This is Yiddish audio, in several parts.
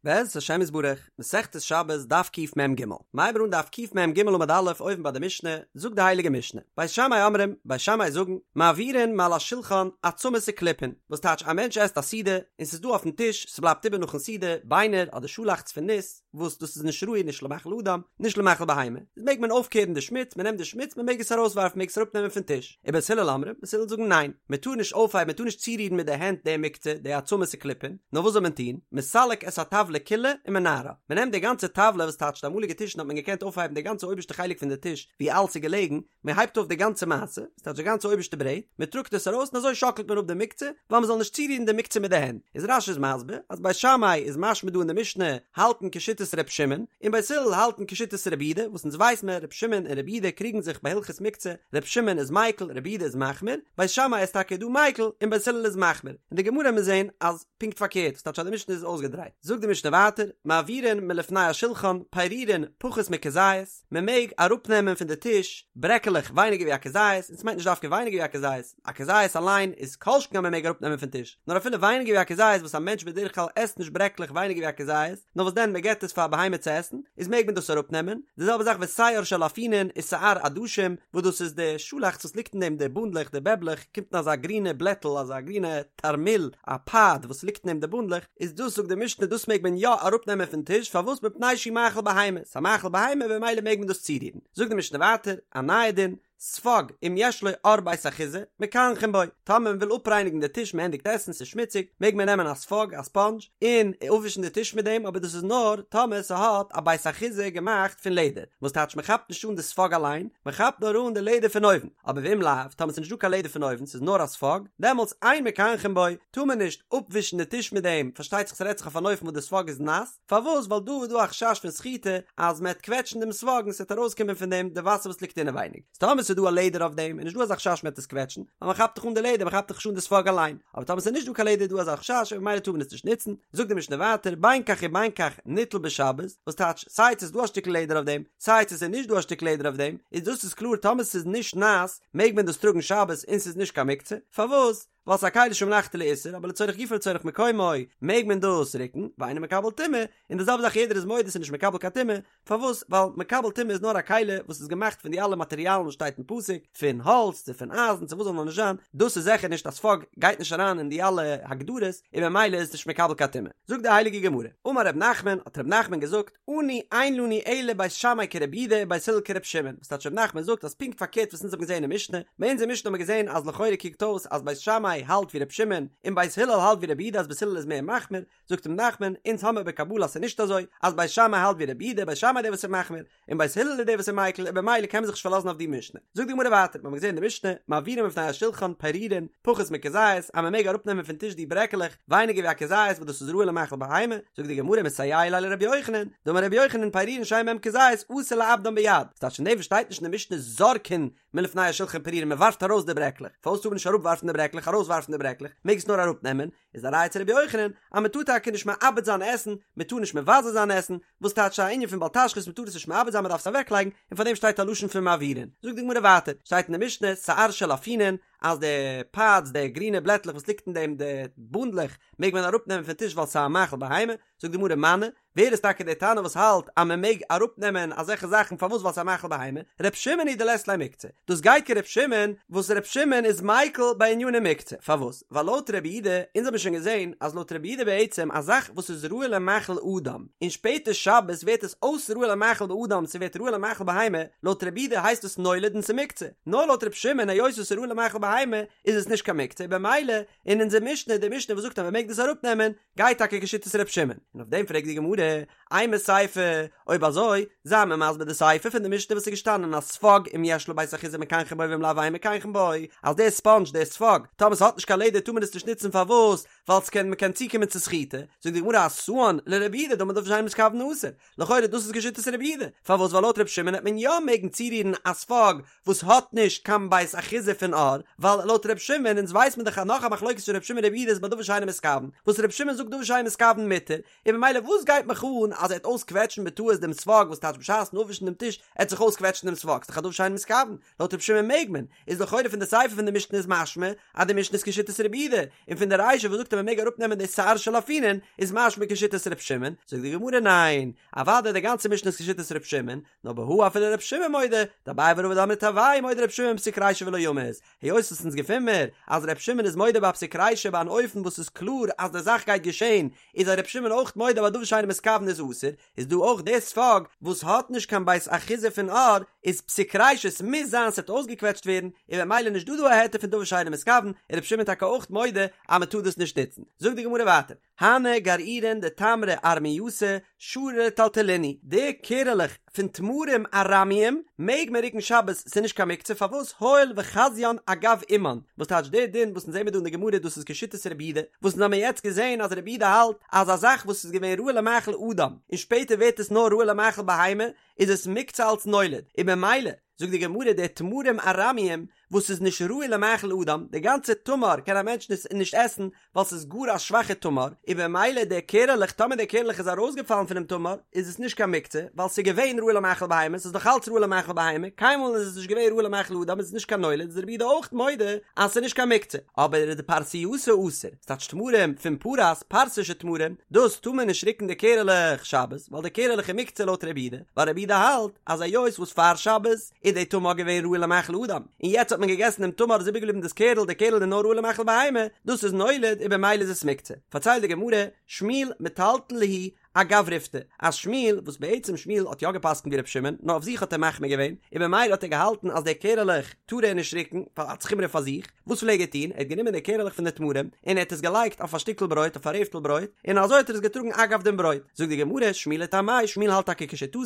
בעזרת השם יתברך, מסכת שבת דף קמ"ג, מ'הייבט אן דף קמ"ג עמוד א' אויבן ביי די משנה, זאגט די הייליגע משנה, בית שמאי אומרים, בית שמאי זאגן, מעבירין מעל השולחן עצמות וקליפין, וואס טייטש א מענטש עסט א סעודה, און ס'איז דא אויפן טיש, ס'בלייבט איבער נאכן סעודה, ביינער אדער שאלאכץ פון ניס, וואס דאס איז נישט ראוי נישט למאכל אדם, נישט למאכל בהמה, איז מעג מען אויפקערן די שמוץ, מ'נעמט די שמוץ, מ'מעג עס ארויסווארפן, מ'מעג עס אראפנעמען פון טיש. ובית הלל אומרים, בית הלל זאגן ניין, מען טאר נישט אויפהייבן, מען טאר נישט צורירן מיט די הענט די מוקצה, די עצמות וקליפין, נאר וואס זאל מען טון, מסלק את הטבלה כולה ומנערה, מען נעמט די גאנצע טבלה וואס טייטש די אמאליגע טישן האט מען געקענט אויפהייבן די גאנצע אויבערשטע חלק פון די טיש ווי אלס איז געלעגן, מען הייבט אויף די גאנצע מעשה, וואס טייטש די גאנצע אויבערשטע ברעט, מען טראגט עס ארויס און אזוי שאקלט מען אפ די מוקצה, ווייל מען זאל נישט צורירן די מוקצה מיט די הענט, איז רש"י איז מסביר אז בית שמאי איז משמע דא אין די משנה האלטן כשיטת ר' שמעון, און בית הלל האלטן כשיטת רבי יהודה, וואס אונז ווייס מען ר' שמעון און רבי יהודה קריגן זיך ביי הלכות מוקצה, ר' שמעון איז מיקל, רבי יהודה איז מחמיר, בית שמאי איז טאקע דא מיקל, און בית הלל איז מחמיר. אין די גמרא מיר זעהן אז פונקט פארקערט, וואס טייטש אז די משנה איז אויסגעדרייט. זאגט די משנה ווייטער, מעבירין מלפני השולחן, פירורין, פחות מכזית, מען מעג אראפנעמען פון די טיש ברעקעלעך ווייניגער ווי א כזית, און ס'מיינט נישט דווקא ווייניגער ווי א כזית, א כזית אליין איז כל שכן אז מען מעג אראפנעמען פון טיש, נאר אפילו ווייניגער ווי א כזית וואס א מענטש בדרך כלל עסט נישט ברעקלעך ווייניגער ווי א כזית, נאר וואס דען מען געבט עס פאר א בהמה צו עסן, איז מעג מען דאס אראפנעמען, די זעלבע זאך ושער של אפונין ושער עדשים, וואס דאס איז די שאלאכץ וואס ליגט אין דעם די בונדלעך די בעבלעך, קומט אין אזא גרינע בלעטל אזא גרינע תרמיל א פאד וואס ליגט אין דעם די בונדלעך, איז דאס זאגט די משנה דאס מעג מען יא אראפנעמען פון טיש פארוואס מפני שהוא מאכל בהמה, ס'איז א מאכל בהמה במילא מעג מען דאס צורירן, זאגט די משנה ווייטער א נייע דין, ספוג, אם יש לו עור בית אחיזה, מקנחין בו, טאמער מען וויל אפרייניגן די טיש מען ענדיגט עסן ס'איז שמוציג, מעג מען נעמען א ספוג, א ספאנדזש, און אפווישן די טיש מיט דעם, אבער דאס איז נאר טאמער ס'האט א בית אחיזה געמאכט פון לעדער, וואס טייטש מען כאפט נישט אן די ספוג אליין, מען כאפט נאר אן די לעדער פון אויבן, אבער ואם לאו, טאמער ס'איז נישט דא קיין לעדער פון אויבן, ס'איז נאר א ספוג, דעמאלטס אין מקנחין בו, טאר מען נישט אפווישן די טיש מיט דעם, פארשטייט זיך ס'רעדט זיך אויף אן אופן וואס די ספוג איז נאס, פארוואס? ווייל דא איז דא א חשש פון סחיטה אז מען וועט קוועטשן דעם ספוג און ס'וועט ארויסקומען פון דעם די וואסער וואס ליגט אינעווייניג. איז טאמער ס'איז דא א לעדער אויף דעם איז נישט דא אזא חשש מען וועט עס קוועטשן, ווייל מען כאפט דאך אן די לעדער, מען כאפט דאך נישט אן די ספוג אליין. אבער טאמער ס'איז נישט דא קיין לעדער איז דא אזא חשש און ממילא טאר מען עס נישט נוצן. זאגט די משנה ווייטער, בין כך ובין כך ניטל בשבת, וואס טייטש סיי צו ס'איז דא א שטיקל לעדער אויף דעם, סיי צו ס'איז נישט דא א שטיקל לעדער אויף דעם, איז דאס איז קלאר טאמער ס'איז נישט נאס מעג מען דאס טראגן שבת און ס'איז נישט קיין מוקצה. פארוואס? ווייל ס'איז א כלי שמלאכתו לאיסור, אבער לצורך גופו לצורך מקומו מעג מען דאס רוקן, ואינו מקבל טומאה, און די זעלבע זאך יעדער איז מודה ס'איז נישט מקבל קיין טומאה, פארוואס? ווייל מקבל טומאה איז נאר א כלי וואס איז געמאכט פון די אלע מאטריאלן וואס שטייט אין פסוק, פון האלץ צו פון אייזן צו וואס זאל נאר נישט זיין, דאס איז זיכער נישט א ספוג גייט נישט אריין אין די אלע הגדרות, און ממילא איז עס נישט מקבל קיין טומאה. זאגט די הייליגע גמרא, אמר ר' נחמן, האט ר' נחמן געזאגט, אנו אין לנו אלא בית שמאי כרבי יהודה ובית הלל כרבי שמעון, וואס טייטש ר' נחמן זאגט אז פונקט פארקערט וואס אונז האבן געזען אין משנה, ביי אונז אין משנה האבן מיר געזען אז לכאורה קוקט אויס אז בית שמאי האלט ווי ר' שמעון און בית הלל האלט ווי רבי יהודה אז בית הלל איז מער מחמיר, זאגט ר' נחמן, אונז האמיר בקבלה אז ס'איז נישט אזוי, אז בית שמאי האלט ווי רבי יהודה, בית שמאי איז דער וואס איז מחמיר, און בית הלל איז דער וואס איז מיקל, און במילא קען מען זיך נישט פארלאזן אויף די משנה. זאגט די גמרא ווייטער, מיר האבן געזען אין די משנה, מעבירין מלפני השולחן, פירורין, פחות מכזית, אז מען מעג אראפנעמען פון טיש די ברעקעלעך, ווייניגער ווי א כזית וואס דאס איז ראוי למאכל בהמה, זאגט די גמרא מסייע ליה לרבי יוחנן, דאמר רבי יוחנן פירורין שאין בהם כזית אסור לאבדן ביד, ס'טייטש פון דעם וואס שטייט נישט אין די משנה זורקין מלפני השולחן פירורין מען ווארפט ארויס די ברעקלעך, פארוואס טאר מען נישט אראפווארפן די ברעקלעך ארויסווארפן די ברעקלעך, מעג עס נאר אראפנעמען, איז א ראיה צו רבי יוחנן אז מען טאר טאקע נישט מאבד זיין עסן, מען טאר נישט מבזה זיין עסן, וואס טייטש א ענין פון בל תשחית מען טאר עס נישט מאבד זיין מען דארף עס אוועקלייגן, און פאר דעם שטייט א לשון פון מעבירין. זאגט די גמרא ווייטער, שטייט אין די משנה, שער של אפונין, אז די פאדס, די גרינע בלעטלעך וואס ליגט אין דעם, די בונדלעך, מעג מען אראפנעמען פון טיש ווייל ס'איז א מאכל בהמה, זאגט די גמרא מני, ווער איז טאקע דער תנא וואס האלט אז מען מעג אראפנעמען אזעלכע זאכן פארוואס ווייל ס'איז א מאכל בהמה, ר' שמעון היא דלית ליה מוקצה, דאס גייט כר' שמעון וואס ר' שמעון איז מיקל בעניני מוקצה, פארוואס? ווייל לויט רבי יהודה, אונז האבן שוין געזען אז לויט רבי יהודה בעצם א זאך וואס איז ראוי למאכל אדם, און שפעטער שבת ווערט עס אויס ראוי למאכל באדם ס'ווערט ראוי למאכל בהמה, לויט רבי יהודה הייסט עס נולד און ס'מוקצה, נאר לויט ר' שמעון היות עס איז ראוי למאכל בהמה איז עס נישט קיין מוקצה, במילא אין אונזער משנה, די משנה וואס זאגט אז מען מעג דאס אראפנעמען, גייט טאקע כשיטת ר' שמעון, און אויף דעם פרעגט די גמרא, אימא סיפא, אויב אזוי, זיי מיר מסביר די סיפא פון די משנה וואס איז געשטאנען אז ספוג אם יש לו בית אחיזה מקנחין בו ואם לאו אין מקנחין בו, אז דער ספאנדזש, דער ספוג, טאמער ס'האט נישט קיין לעדער טאר מען עס נישט נוצן פארוואס? ווייל ס'קען מ'קען צוקומען צו סחיטה, זאגט די גמרא אתאן לרבי יהודה דאמר דבר שאינו מתכוין אסור, לכאורה דאס איז כשיטת רבי יהודה, פארוואס ווייל לויט רבי שמעון העט מען יא מעגן צורירן א ספוג וואס האט נישט קיין בית אחיזה פון עור, ווייל לויט רבי שמעון, אונז ווייס מען דאך אז נאך א מחלוקת פון רבי שמעון רבי יהודה איז ביי דבר שאינו מתכוין, וואס רבי שמעון זאגט דבר שאינו מתכוין מותר, און ממילא וואס גייט מיך אן אז ער העט אויסקוועטשן בטעות שבת דעם ספוג וואס טייטש בשעת'ן אפווישן דעם טיש עט זיך אויסקוועטשן דעם ספוג, ס'דאך א דבר שאינו מתכוון, לויט ר' שמעון מעג מען, איז לכאורה פון די סיפא פון די משנה איז משמע אז די משנה איז כשיטת רבי יהודה, און פון די רישא וואס זאגט אז מען מעג אראפנעמען די שער של אפונין איז משמע כשיטת ר' שמעון, זאגט די גמרא ניין, אוודאי די גאנצע משנה איז כשיטת ר' שמעון, נאר בהא אפילו ר' שמעון מודה, דאביי ורבא דאמרי תרוייהו מודה ר' שמעון בפסיק רישא ולא ימות, היות וואס אונז געפין מיר אז ר' שמעון איז מודה ביי א פסיק רישא ביי אן אופן וואס איז קלאר אז די זאך גייט געשען, איז א ר' שמעון אויך מודה ביי דבר שאינו מתכוון איז אסור, איז דא אויך די ספוג וואס האט נישט קיין בית אחיזה פון עור איז פסיק רישא ס'מוז זיין ס'וועט אויסגעקוועטשט ווערן און במילא נישט דא דא א היתר פון דבר שאינו מתכוון איז ר' שמעון טאקע אויך מודה אז מ'טאר דאס נישט נוצן. זאגט די גמרא ווייטער, הני גרעירין דתמרי ארמייתא שרי לטלטולינהו, די קערעלעך פון תמרים ארמיים מעג מען רוקן שבת ס'איז נישט קיין מוקצה פארוואס הואיל וחזיין אגב אמן וואס טייטש די דין וואס אונז זעמיר דא אין די גמרא דאס איז כשיטת רבי יהודה וואס אונז האמיר יעצט געזען אז רבי יהודה האלט אז א זאך וואס איז געווען ראוי למאכל אדם און שפעטער ווערט עס נאר ראוי למאכל בהמה איז עס מוקצה אלץ נולד און במילא זאגט די גמרא די תמרים ארמיים וואס איז נישט ראוי למאכל אדם, די גאנצע תמר קען א מענטש נישט עסן ווייל ס'איז גאר א שוואכע תמר, און במילא די קערעלעך טאמער די קערעלעך איז ארויסגעפאלן פונעם תמר איז עס נישט קיין מוקצה ווייל ס'איז געווען ראוי למאכל בהמה, ס'איז דאך אלץ ראוי למאכל בהמה, קיינמאל איז עס נישט געווען ראוי למאכל אדם איז עס נישט קיין נולד איז רבי יהודה אויך מודה אז ס'איז נישט קיין מוקצה, אבער דפרסייתא אסור, ס'טייטש תמרים פון פרס, פרס'ישע תמרים, דאס טאר מען נישט רוקן די קערעלעך שבת, ווייל די קערעלעך איז מוקצה לויט רבי יהודה, ווייל רבי יהודה האלט אז היות וואס פאר שבת איז די תמר געווען ראוי למאכל אדם, און יעצט האט מען געגעסן דעם תמר איז איבערגעבליבן דאס קערל, די קערל איז נאר ראוי למאכל בהמה, דאס איז נולד און במילא איז עס מוקצה. פארציילט די גמרא, שמואל מטלטל להו אגב ריפתא, אז שמואל, וואס בעצם שמואל האט יא געפסקנט ווי ר' שמעון, נאר אויף זיך האט ער מחמיר געווען, און במילא האט ער געהאלטן אז די קערעלעך טאר ער נישט רוקן, ווייל אלץ חומרא פאר זיך, וואס פלעג ער טון, ער האט גענומען די קערעלעך פון די תמרים, און ער האט עס געלייגט אויף א שטיקל ברויט, אויף א רעפטל ברויט, און אזוי האט ער עס געטראגן אגב דעם ברויט. זאגט די גמרא, שמואל לטעמיה, שמואל האלט טאקע כשיטתו,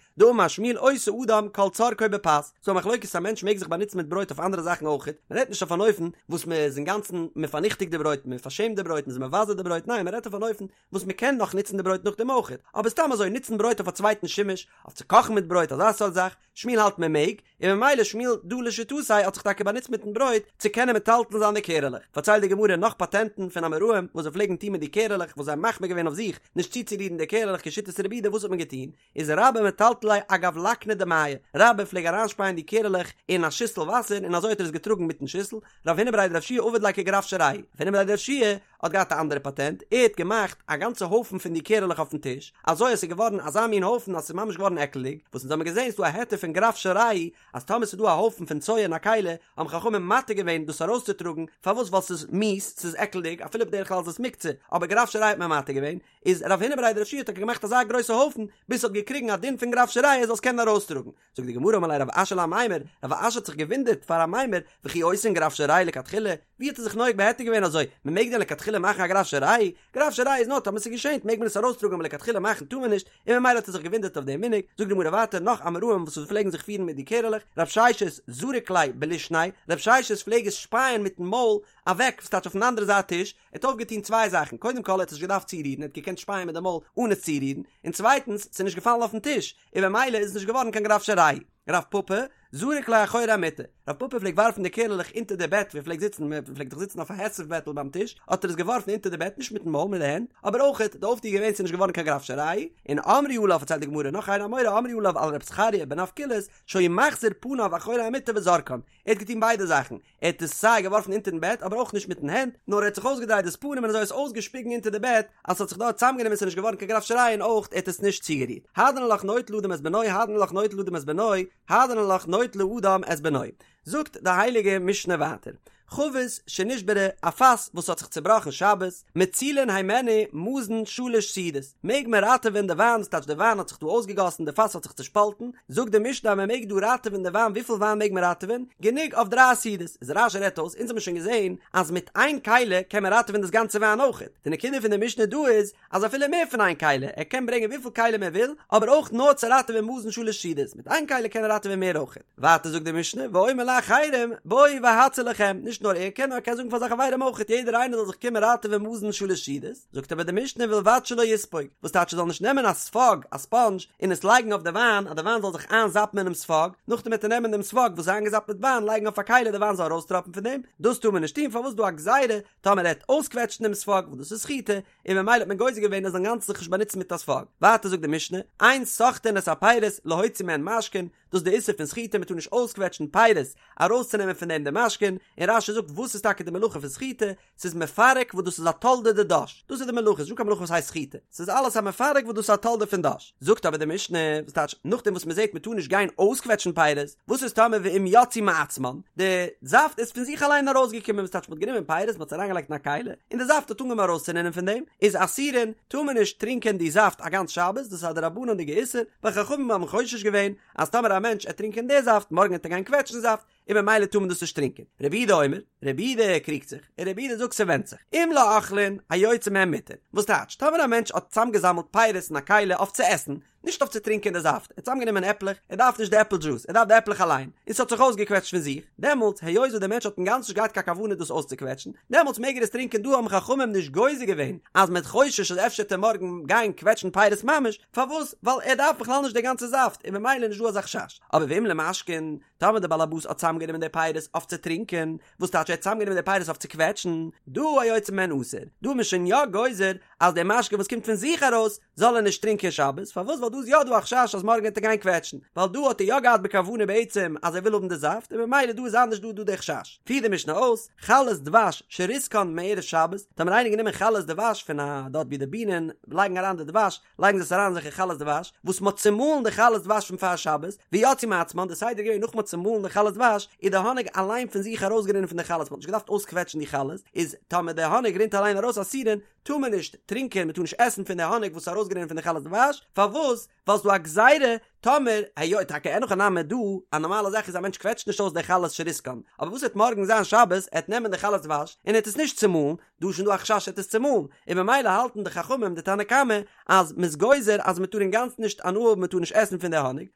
דאמר שמואל עושה אדם כל צרכו בפת, ס'דא א מחלוקת א מענטש מעג זיך באנוצן מיט ברויט אויף אנדערע זאכן אויכעט, מען רעדט נישט אויף אן אופן וואס מען איז אינגאנצן מען פארניכטיגט די ברויט, מען פארשעמט די ברויט, מען איז מבזה די ברויט, ניין מען רעדט אויף אן אופן וואס מען קען נאך נוצן די ברויט נאכדעם אויכעט, אבער סתם אזוי נוצן ברויט אויף א צווייטן שימוש, אויף צו קאכן מיט ברויט אזא סארט זאך, שמואל האלט מען מעג, און ממילא שמואל דא לשיטתו האט זיך טאקע באנוצט מיטן ברויט צו קענען מטלטל זיין די קערעלעך. פארציילט די גמרא נאך פאטענטן פון אמוראים וואס זיי פלעגן טון מיט די קערעלעך וואס זיי האבן מחמיר געווען אויף זיך נישט צוצורירן די קערעלעך כשיטת רבי יהודה וואס האט מען געטון? איז רבה מטלטל להו אגב לקנא דמיא, רבה פלעג אריינשפייען די קערעלעך אין א שיסל וואסער און אזוי האט ער עס געטראגן מיטן שיסל, רב הונא בריה דרב יהושע עביד ליה כגרף של רעי, רב הונא בריה דרב יהושע האט געהאט א אנדערע פאטענט, ער האט געמאכט א גאנצע הויפן פון די קערעלעך אויפן טיש, אזוי אז ס'איז געווארן אזא מין הויפן אז ס'איז ממש געווארן עקלדיג, וואס אונז האבן געזען ס'דא א היתר פון גרף של רעי, אז טאמער ס'איז דא א הויפן פון צואה אין א כלי, האבן חכמים מתיר געווען דאס ארויסצוטראגן, פארוואס ווייל ס'איז מיאוס, ס'איז עקלדיג, אפילו בדרך כלל איז עס מוקצה, אבער גרף של רעי האט מען מתיר געווען, איז רב הונא בריה דרב יהושע האט טאקע געמאכט אזא גרויסע הויפן ביז ס'האט געקריגן א דין פון גרף של רעי ער זאל עס קענען ארויסטראגן. זאגט די גמרא אמר ליה רב אשי לאמימר, רב אשי האט זיך געוואונדערט פאר אמימר, וכי עושין גרף של רעי לכתחילה, ווי האט ער זיך נוהג בהיתר געווען אזוי, מ'מעג דען לכתחילה מאכן א גרף של רעי? גרף של רעי איז נאר טאמער ס'געשענט מעג מען עס ארויסטראגן אבער לכתחילה מאכן טאר מען נישט, און ממילא האט ער זיך געוואונדערט אויף דעם מנהג, זאגט די גמרא ווייטער נאך אמוראים וואס פלעגן זיך פירן מיט די קערעלעך, רב ששת זריק להו בלישניה, רב ששת פלעג עס שפייען מיטן מויל אוועק, וואס טייטש אויפן אנדערע זייט טיש, ער האט אויפגעטון צוויי זאכן, קודם כל ער האט עס נישט געדארפט צורירן, ער האט געקענט שפייען מיט די מויל אן עס צורירן, און צווייטנס, ס'איז נישט געפאלן אויפן טיש, און במילא איז עס נישט געווארן קיין גרף של רעי. רב פפא, זריק להו אחורי המיטה, רב פפא פלעגט ווארפן די קערעלעך אונטער די בעט ווי ער פלעגט זיצן, מען פלעגט דאך זיצן אויף א היסב בעטל ביים טיש, האט ער עס געווארפן אונטער די בעט, נישט מיטן מויל, מיט די הענט, אבער אויכעט, די אויפטו איז געווען ס'איז נישט געווארן קיין גרף של רעי, און אמרו עליו פארציילט די גמרא נאך איין אמורא אמרו עליו על רב זכריה בן אבקולס, שהיה מחזיר פניו אחורי המיטה וזורקן, ער האט געטון ביידע זאכן, ער האט עס סיי געווארפן אונטערן בעט אבער אויך נישט מיטן הענט, נאר ער האט זיך אויסגעדרייט דאס פנים און אזוי עס אויסגעשפיגן אונטער די בעט אז ס'האט זיך דארט צוזאמגענומען ס'איז נישט געווארן קיין גרף של רעי און אויך ער האט עס נישט צוגערירט. הדרן עלך נוטל אדם את בנו הדרן עלך נוטל אדם את בנו הדרן עלך נוטל אדם את בנו זאגט די הייליגע משנה ווייטער חבית שנשברה א פאס וואס האט זיך צובראכן שבת מצילין הימנו מזון שלש סעודות מעג מען ראטעווען די וויין ס'טייטש די וויין האט זיך דא אויסגעגאסן די פאס האט זיך צושפאלטן זאגט די משנה אז מען מעג דא ראטעווען די וויין וויפיל וויין מעג מען ראטעווען גענוג אויף דריי סעודות איז רש"י רעדט אויס אונז האבן שוין געזען אז מיט איין כלי קען מען ראטעווען דאס גאנצע וויין אויכעט די נקודה פון די משנה דא איז אז אפילו מער פון איין כלי ער קען ברענגען וויפיל כלים ער וויל אבער אויך נאר צו ראטעווען מזון שלש סעודות מיט איין כלי קען ער ראטעווען מער אויכעט ווייטער זאגט די משנה ואומר לאחרים בואו והצילו לכם נישט. נישט נאר ער קען נאר ער קען זאגן פאר זיין חברים אויכעט יעדער איינער זאל זיך קומען ראטעווען מזון שלש סעודות, זאגט אבער די משנה ובלבד שלא יספוג, וואס טייטש ער זאל נישט נעמען א ספאג, א ספאנדזש, און עס לייגן אויף די וויין אז די וויין זאל זיך איינזאפן אינעם ספאג, נאכדעם וועט ער נעמען דעם ספאג וואס איז איינגעזאפט מיט וויין לייגן אויף א כלי די וויין זאל ארויסטראפן פון דעם, דאס טאר מען נישט טון פארוואס דא א גזירה טאמער ער וועט אויסקוועטשן דעם ספאג וואס דאס איז סחיטה, און ממילא האט מען גוזר געווען ער זאל אינגאנצן זיך נישט באנוצן מיט א ספאג. ווייטער זאגט די משנה, אין סוחטין את הפירות להוציא מהן משקין, דאס איז די איסור פון סחיטה מען טאר נישט אויסקוועטשן פירות ארויסצונעמען פון דעם די משקין, און רש"י זאגט וואס איז טאקע די מלאכה פון סחיטה, ס'איז מפרק וואס דאס איז א תולדה דדש, דאס איז די מלאכה, ס'איז נישטא קיין מלאכה וואס הייסט סחיטה, ס'איז אלעס א מפרק וואס דאס איז א תולדה פון דש. זאגט אבער די משנה, וואס טייטש נאכדעם וואס מען זעט מען טאר נישט גיין אויסקוועטשן פירות, וואס איז טאמער ואם יצאו מעצמן, די זאפט איז פון זיך אליין ארויסגעקומען, וואס טייטש מען האט גענומען פירות מען האט עס אריינגעלייגט אין א כלי, און די זאפט האט אנגעהויבן ארויסצורינען פון דעם, איז אסורין, טאר מען נישט טרינקען די זאפט א גאנץ שבת, דאס איז א דרבנן'דיגע איסור, ווייל חכמים האבן חושש געווען אז טאמער א מענטש עט טרינקען די זאפט, מארגן עט ער גיין קוועטשן זאפט, און ממילא טאר מען דאס נישט טרינקען. רבי יהודה אומר, רבי יהודה קריגט זיך, און רבי יהודה זאגט ס'ווענדט זיך, אם לאוכלין, היוצא מהן מותר. וואס טייטש, טאמער א מענטש האט צאמגעזאמלט פירות אין א כלי אויף צו עסן, נישט אויף צו טרינקען די זאפט, ער האט צאמגענומען עפלעך, ער דארף נישט די עפל דזשוס, ער דארף די עפלעך אליין, און ס'האט זיך אויסגעקוועטשט פון זיך, דעמאלטס, היות וואס דער מענטש האט אינגאנצן נישט געהאט קיין כוונה דאס אויסצוקוועטשן, דעמאלטס מעג ער עס טרינקען, דא האבן חכמים נישט גוזר געווען אז מ'איז חושש אז אפשר וועט ער מארגן גיין קוועטשן פירות ממש, פארוואס? ווייל ער דארף בכלל נישט די גאנצע זאפט, און ממילא איז נישט דא אזא חשש. אבער ואם למשקין, טאמער דער באלעבאס האט צאמגענומען די פירות אויף צו טרינקען, וואס טייטש ער האט צאמגענומען די פירות אויף צו קוועטשן, דא היוצא מהן אסור, דא איז מען שוין יא גוזר אז די משקה וואס קומט פון זיך ארויס זאל ער נישט טרינקען שבת, פארוואס ווייל דא איז יא דא א חשש אז מארגן וועט ער גיין קוועטשן, ווייל דא האט ער יא געהאט בכוונה בעצם אז ער וויל האבן די זאפט און ממילא דא איז אנדערש דא איז דא די חשש. פירט די משנה אויס, חלות דבש שריסקן מערב שבת, טאמער איינער גענומען חלות דבש פון א דארט ווי די בינען לייגן אריין די דבש, לייגן זיי עס אריין אזעלכע חלות דבש, וואס מ'האט צומאלן די חלות דבש פון פאר שבת, ויצאו מעצמן, די סדר איז געווען נאך מ'האט צומאלן די חלות דבש, איז די האניג אליין פון זיך ארויסגערינען פון די חלות, מ'האט נישט געדארפט אויסקוועטשן די חלות, איז טאמער די האניג רינט אליין ארויס אסורין, טאר מען נישט טרינקען, מ'טאר נישט עסן פון די האניג וואס איז ארויסגערינען פון די חלות דבש, פארוואס? ווייל ס'דא א גזירה, טאמער, היות, טאקע אין הכי נמי דא, א נארמאלע זאך איז א מענטש קוועטשט נישט אויס די חלות שריסקן, אבער וואס וועט מארגן זיין שבת, ער וועט נעמען די חלות דבש, און ער וועט עס נישט צומאלן, דא איז שוין דא א חשש ער וועט עס צומאלן, און ממילא האלטן די חכמים די תנא קמא אז מ'איז גוזר אז מ'טאר אינגאנצן נישט הנאה האבן מ'טאר נישט עסן פון די האניג,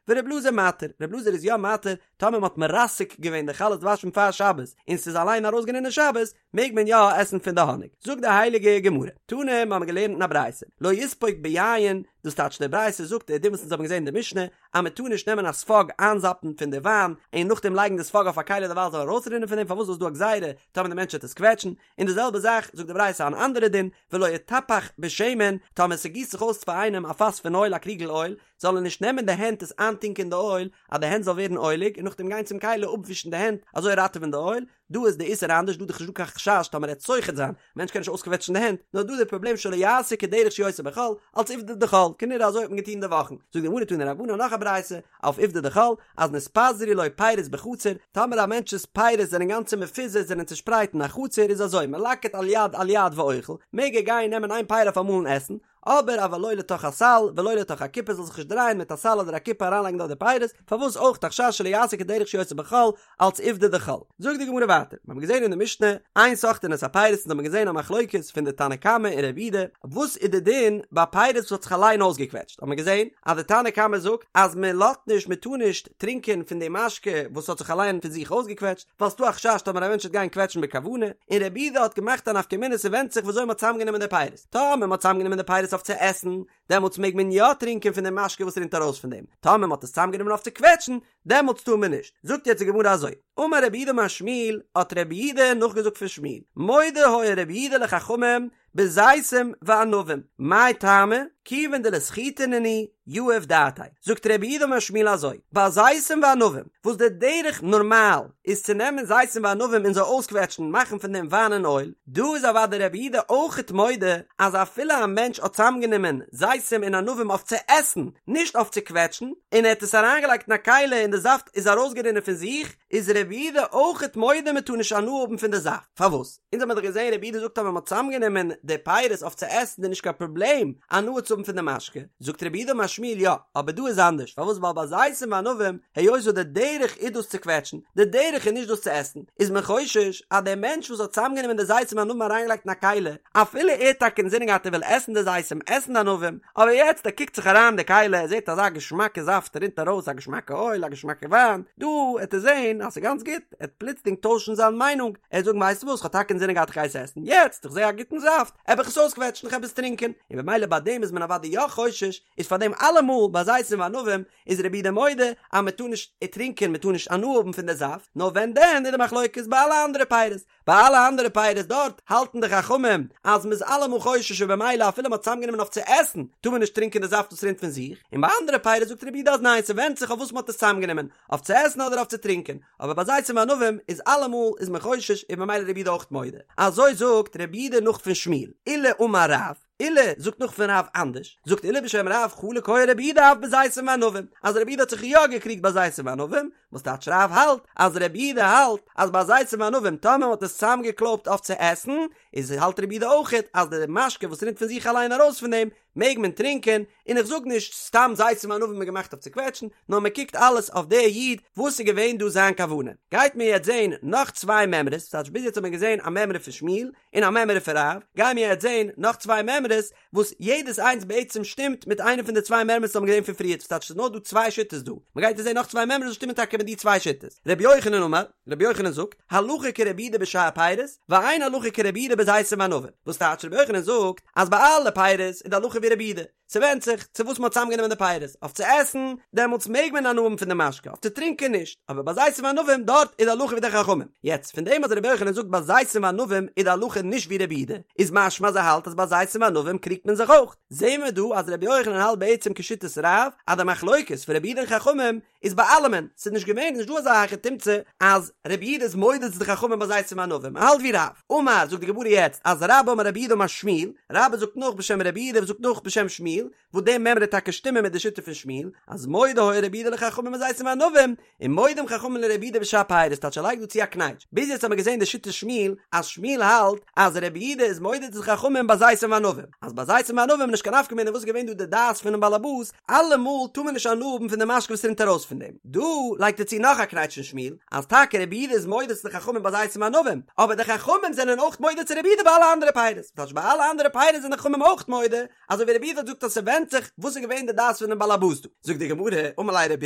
ור' אלעזר מתיר, ר' אלעזר איז יא מתיר טאמער מ'האט מרסק געווען די חלות דבש פון פאר שבת און ס'איז אליין ארויסגערינען שבת, מעג מען יא עסן פון די האניג. זאגט די הייליגע גמרא, תנא, מ'האמיר געלערנט אין א ברייתא, לא יספוג ביין, דאס טייטש די ברייתא זאגט די דין וואס אונז האבן געזען אין די משנה, אז מען טאר נישט נעמען א ספאג איינזאפן פון די וויין און נאכדעם לייגן די ספאג אויף א כלי די וויין זאל ארויסרינען פון דעם פארוואס איז דא א גזירה טאמער די מענטש וועט עס קוועטשן, און די זעלבע זאך זאגט די ברייתא אן אנדערע דין, ולא יטפח בשמן, טאמער ס'גיסט זיך אויס פאר איינעם א פאס פון אויל א קריגל אויל, זאל ער נישט נעמען די הענט עס איינטונקען אין די אויל אז די הענט זאל ווערן אויליג און נאכדעם גיין צום כלי אפווישן די הענט אזוי ראטעווען די אויל, דא איז די איסור אנדערש דא איז דאך נישט דא קיין חשש טאמער ער וועט סוחט זיין, מענטש קען נישט אויסקוועטשן די הענט, נאר דא איז די פראבלעם שלא יעשה כדרך שהוא עושה בחול, אלס עובדא דחול, כנראה אזוי האט מען געטון אין די וואכן, זאגט די גמרא תנו רבנן נאך א ברייתא, אויף עובדא דחול, אז נתפזרו לו פירות בחצר, טאמער א מענטש'ס פירות זענען גאנצע מפוזר זענען צושפרייט אין א חצר איז אזוי מלקט על יד על יד ואוכל, מעג ער גיין נעמען איין פרי אויף אמאל און עסן, אבער אבל לא לתוך הסל ולא לתוך הקופה זאל זיך נישט דרייען מיט א סל אדער א קופה אריינלייגן דארט די פירות, פארוואס אויך א חשש שלא יעשה כדרך שהוא עושה בחול אלץ עובדא דחול. זאגט די גמרא ווייטער, מיר האבן געזען אין די משנה, אין סוחטין את הפירות אונז האבן געזען א מחלוקת פון די תנא קמא און רבי יהודה, וואס איז די דין ביי פירות וואס האט זיך אליין אויסגעקוועטשט, האט מען געזען אז די תנא קמא זאגט אז מען לאזט נישט מען טאר נישט טרינקען פון די משקה וואס האט זיך אליין פון זיך אויסגעקוועטשט, ווייל ס'דא א חשש טאמער א מענטש וועט גיין קוועטשן בכוונה, און רבי יהודה האט געמאכט א נפקא מינה ס'ווענדט זיך וויאזוי מ'האט צוזאמגענומען די פירות. טאמער מ'האט צוזאמגענומען די פירות אויף צו עסן, דעמאלטס מעג מען יא טרינקען פון די משקה וואס רינט ארויס פון דעם, טאמער מ'האט עס צוזאמגענומען אויף צו קוועטשן, דעמאלטס טאר מען נישט. זאגט יעצט די גמרא אזוי, אמר רב יהודה אמר שמואל, האט רב יהודה נאכגעזאגט פון שמואל, מודה היה רב יהודה לחכמים בזיתים וענבים, מאי טעמא, כיוון דלסחיטה נינהו, יהיב דעתיה. זאגט רב יהודה אמר שמואל אזוי, ביי זיתים וענבים, וואס די דרך נארמאל איז צו נעמען זיתים וענבים און זיי אויסקוועטשן מאכן פון דעם וויין און אויל, דא איז אוודאי רבי יהודה אויכעט מודה אז אפילו א מענטש האט צוזאמגענומען זיתים און ענבים אויף צו עסן, נישט אויף צו קוועטשן, און ער האט עס אריינגעלייגט אין א כלי און די זאפט איז ארויסגערינען פון זיך, איז רבי יהודה אויכעט מודה מען טאר נישט הנאה האבן פון די זאפט. פארוואס? אונז האבן דאך געזען רבי יהודה זאגט אז ווען מען האט צוזאמגענומען. די פירות אויף צו עסן איז נישט קיין פראבלעם הנאה צו האבן פון די משקה, זאגט רב יהודה אמר שמואל יא, אבער דא איז אנדערש, פארוואס ווייל ביי זיתים וענבים היות וואס די דרך איז דאס צו קוועטשן, די דרך איז נישט דאס צו עסן, איז מען חושש אז דער מענטש וואס האט צוזאמגענומען די זיתים וענבים אריינגעלייגט אין א כלי, אפילו ער האט טאקע אינזינען געהאט ער וויל עסן די זיתים עסן די ענבים, אבער יעצט ער קוקט זיך אריין אין די כלי ער זעט אזא געשמאקע זאפט רינט ארויס א געשמאקע אויל א געשמאקע וויין, דא העט ער זען אז ס'איז גאנץ גוט, ער העט פלוצלינג טוישן זיין מיינונג, ער העט זאגן ווייסטו וואס כ'האב טאקע אינזינען געהאט איך גיי עס עסן, יעצט איך זע א גוטן זאפט, העב איך עס אויסקוועטשן איך העב עס טרינקען, און במילא ביי דעם איז מען אוודאי יא חושש, איז פאר דעם אלעמאל ביי זיתים וענבים איז רבי יהודה מודה אז מען טאר נישט טרינקען מען טאר נישט הנאה האבן פון די זאפט, נאר ווען דען איז די מחלוקת ביי אלע אנדערע פירות, ביי אלע אנדערע פירות דארט האלטן די חכמים אז מען איז אלעמאל חושש און במילא אפילו מען האט צוזאמגענומען אויף צו עסן טאר מען נישט טרינקען די זאפט וואס רינט פון זיך, און ביי אנדערע פירות זאגט רבי יהודה אז ניין ס'ווענדט זיך אויף וואס מען האט עס צוזאמגענומען, אויף צו עסן אדער אויף צו טרינקען, אבער ביי זיתים וענבים איז אלעמאל איז מען חושש און במילא רבי יהודה אויך מודה. אזוי זאגט רבי יהודה נאך פון שמואל, עולא אמר רב, עולא זאגט נאך פון רב אנדערש, זאגט עולא בשם רב חלוק היה רבי יהודה אף בזיתים וענבים, אז רבי יהודה האט זיך יא געקריגט ביי זיתים וענבים, וואס טייטש רב האלט אז רבי יהודה האלט אז ביי זיתים וענבים טאמער מען האט עס צוזאמגעקלויבט אויף צו עסן, איז האלט רבי יהודה אויכעט אז די משקה וואס רינט פון זיך אליין ארויס פון דעם מעג מען טרינקען, און איך זאג נישט סתם זיתים וענבים איז געמאכט אויף צו קוועטשן, נאר מען קוקט אלעס אויף די איד וואס איז געווען דא זיין כוונה. גייט מען יעצט זען נאך צוויי מימרות, ס'טייטש ביז יעצט האט מען געזען א מימרא פון שמואל און א מימרא פון רב, גייען מיר יעצט זען נאך צוויי מימרות וואס יעדעס איינס בעצם שטימט מיט איינע פון די צוויי מימרות וואס האבן געזען פון פריערט, ס'טייטש ס'איז נאר דא צוויי שיטות דא, מען גייט יעצט זען נאך צוויי מימרות וואס שטימען טאקע מיט די צוויי שיטות. רבי יוחנן אמר, רבי יוחנן זאגט, הלכה כרבי יהודה בשאר פירות, ואין הלכה כרבי יהודה בזיתים וענבים. וואס טייטש רבי יוחנן זאגט אז ביי אלע פירות איז די הלכה ווי רבי יהודה, ס'ווענדט זיך צו וואס מ'האט צוזאמגענומען די פירות, אויף צו עסן, דעמאלטס מעג מען הנאה האבן פון די משקה, אויף צו טרינקען נישט, אבער ביי זיתים וענבים דארט איז די הלכה ווי די חכמים. יעצט, פון דעם אז רבי יוחנן זאגט ביי זיתים וענבים איז די הלכה נישט ווי רבי יהודה, איז משמע אז ער האלט אז ביי זיתים וענבים קריגט מען זיך אויך. זעהן מיר דא אז רבי יוחנן האלט בעצם כשיטת רב, אז די מחלוקת פון רבי יהודה און חכמים איז ביי אלעמען, ס'איז נישט געווען, נישט דא אזא היכי תמצא אז רבי יהודה איז מודה צו די חכמים ביי זיתים וענבים, ער האלט ווי רב. אמר, זאגט די גמרא יעצט אז רבה אמר רב יהודה אמר שמואל, רבה זאגט נאך בשם רבי יהודה וואס זאגט נאך בשם שמואל, וואס די מימרא טאקע שטימען מיט די שיטה פון שמואל, אז מודה היה רבי יהודה לחכמים בזיתים וענבים, און מודים חכמים לרבי יהודה בשאר פירות, טייטש ער לייגט דא צו א קנייטש. ביז יעצט האבן מיר געזען די שיטת שמואל, אז שמואל האלט אז רבי יהודה איז מודה צו די חכמים ביי זיתים וענבים, אז ביי זיתים וענבים איז נישט קיין נפקא מינה וואס איז געווען דא די דעת פונעם בעלעבאס, אלעמאל טאר מען נישט הנאה האבן פון די משקה וואס רינט ארויס פון דעם. דא לייגט ער צו נאך א קנייטש אין שמואל, אז טאקע רבי יהודה איז מודה צו די חכמים ביי זיתים וענבים, אבער די חכמים זענען אויך מודה צו רבי יהודה ביי אלע אנדערע פירות, טייטש ביי אלע אנדערע פירות זענען די חכמים אויך מודה, אזוי ווי רבי יהודה האט געזאגט אז ס'ווענדט זיך וואס איז געווען די דעת פונעם בעלעבאס דא. זאגט די גמרא, אמר ליה רבי